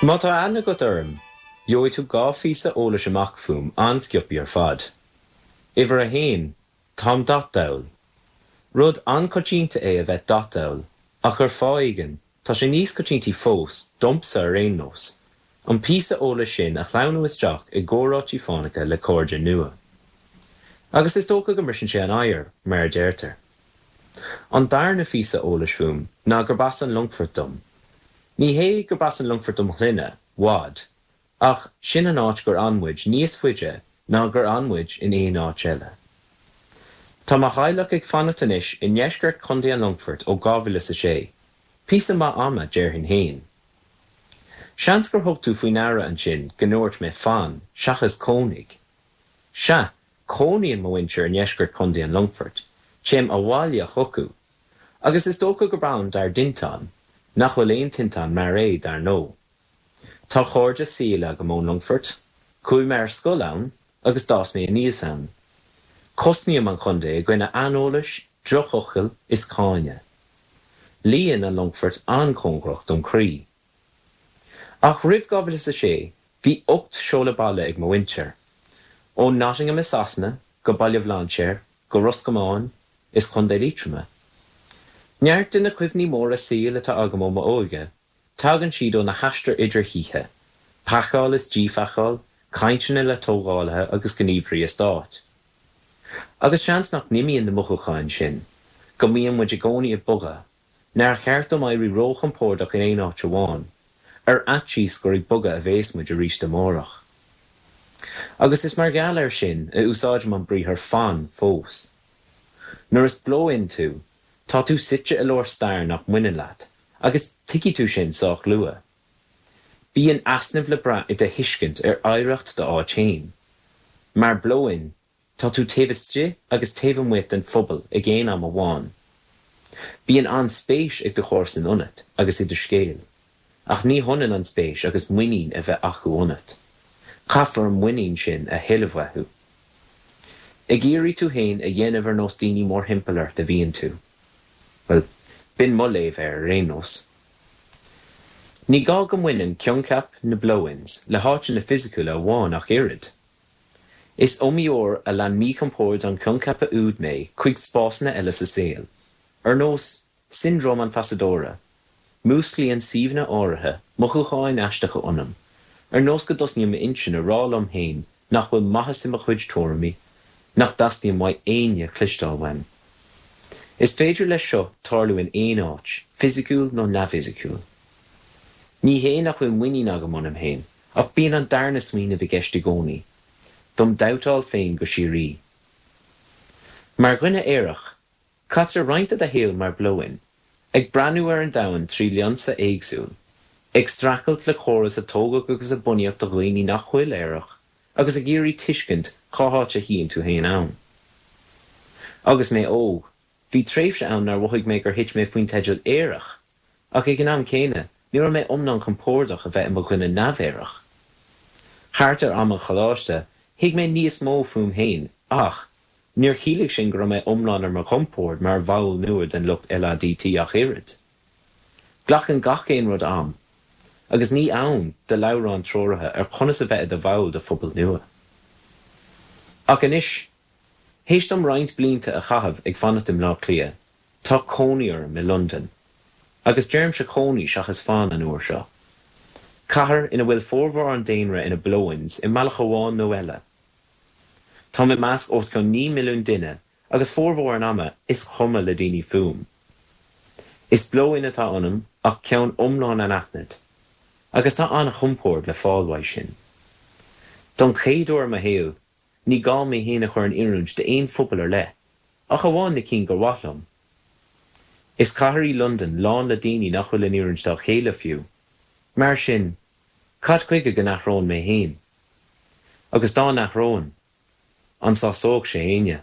Má tá aithne agat orm, gheobhaidh tú 2 phíosa eolais amach fúm an-sciobthaí ar fad. Uimhir a haon, táim dathdall. Rud an-choitianta é a bheith dathdall, ach ar fáth éigin, tá sé níos coitiantaí fós, domsa ar aon nós, an píosa eolais sin a shleamhnú isteach i gcomhráití fánacha le cairde nua. Agus is dócha go mbriseann sé an oighear, mar a deirtear. An darna phíosa eolais fúm ná gurb as an Longfort dom. Ní hé gurb as an Longfort dom shloinne, Wadd, ach sin an áit gur fhan muid níos faide ná gur fhan muid in aon áit eile. Tá mo theaghlach ag fanacht anois i ndeisceart Chontae an Longfoirt ó 2006, píosa maith ama, déarfainn fhéin. Seans gur thug tú faoi ndeara ansin go ndúirt mé 'fan' seachas 'cónaigh'. Sea, cónaíonn mo mhuintir i ndeisceart Chontae an Longfoirt, téim abhaile chucu, Agus is dócha gurb ann dár dtinteán, nach bhfuil aon tinteán mar é, dar ndóigh. Tá cairde saoil agam ón Longfort, chuaigh mé ar scoil ann agus d'fhás mé aníos ann. Cosnaím an chontae i gcoinne aineolais, drochfhocail is cáineadh. Luíonn an Longfort an-chóngarach dom chroí. Ach roimh 2006, bhí 8 seoladh baile ag mo mhuintir. Ó Nottingham i Sasana, go Baile Bhlainséir, go Ros Comáin, is Contae Liatroma. Neart de na cuimhní móra saoil atá agam ó m'óige, tagann siad ó na haistir idir thithe, pacáil is díphacáil, cainteanna le tógálaithe agus gníomhairí eastáit. Agus seans nach n-imíonn na mothúcháin sin, go mbíonn muid i gcónaí ag bogadh, Nár cheart dom éirí róchompordach in aon áit amháin, ar fhaitíos gur ag bogadh a bhéas muid arís amárach. Agus is mar gheall air sin a úsáidim an briathar 'fan' fós. Nuair is blow-in tú, tá tú suite i lár stair nach mbaineann leat, agus tuigfidh tú sin sách luath. Bíonn easnamh le brath i do thuiscint ar oidhreacht d'áit féin. Mar blow-in, Tá tú taobh istigh agus taobh amuigh den phobal ag aon am amháin. Bíonn an-spéis ag do chomharsain ionat agus i do scéal, ach ní hionann an spéis agus muinín a bheith acu ionat. Caithfear an muinín sin a thuilleamh uathu. Ag iarraidh tú féin a dhéanamh ar nós daoine mórthimpeall ort a bhíonn tú. Bhuel, b'in mo léamh air ar aon nós. Ní gá go mbaineann coincheap na blow-ins le háiteanna fisiciúla amháin ach oiread. Is iomaí uair a lean míchompord an choincheapa úd mé chuig spásanna eile sa saol, ar nós siondróm an phasadóra, músclaíonn suíomhanna áirithe mothúcháin aisteacha ionam, ar nós go dtosnaíonn m'intinn a rá liom féin nach bhfuil maitheas i mo chuid tuairimí, nach dteastaíonn uaidh éinne cloisteáil uaim. Is féidir leis seo tarlú in aon áit, fisiciúil nó neamhfhisiciúil. Ní hé nach bhfuil muinín agam ionam féin, Ach bíonn an darna smaoineamh i gceist i gcónaí, dom dabhtáil féin go síoraí. Mar dhuine aerach, caitear roinnt de do shaol mar blow-in, ag breathnú ar an domhan trí lionsa éagsúil, ag streachailt le córas a tógadh agus a bunaíodh do dhaoine nach bhfuil aerach agus ag iarraidh tuiscint cá háit a shuíonn tú féin ann. Agus mé óg, bhí tréimhse ann nár mhothaigh mé gur thit mé faoin teideal aerach Ach ag an am céanna, ní raibh mé iomlán compordach a bheith i mo dhuine neamh-aerach. Thart ar am an choláiste, thuig mé níos mó fúm féin ach, níor chiallaigh sin go raibh mé iomlán ar mo chompord mar bhall nua den lucht LADT ach oiread. Glacann gach aon rud am, agus ní ann do leabhrán treoraithe ar conas a bheith i do bhall de phobal nua. Ach anois, théis dom roinnt blianta a chaitheamh ag fanacht i mBleá Cliath, Tá cónaí orm i Londain. Agus deirimse cónaí seachas fan an uair seo. Cathair ina bhfuil formhór an daonra ina blow-ins i mbealach amháin nó eile. Táim i measc os cionn 9 milliún duine agus formhór an ama is cuma le daoine fúm. Is blow-in atá ionam ach ceann iomlán anaithnid. Agus tá an-chompord le fáil uaidh sin. Don chéad uair i mo shaol, Ní gá mé féin a chur in oiriúint d'aon phobal ar leith, ach amháin na cinn gur mhaith liom. Is cathair í Londain lán le daoine nach bhfuil in oiriúint dá chéile fiú. Mar sin, cad chuige go n-athróinn mé féin? Agus dá n-athróinn, an sásódh sé éinne?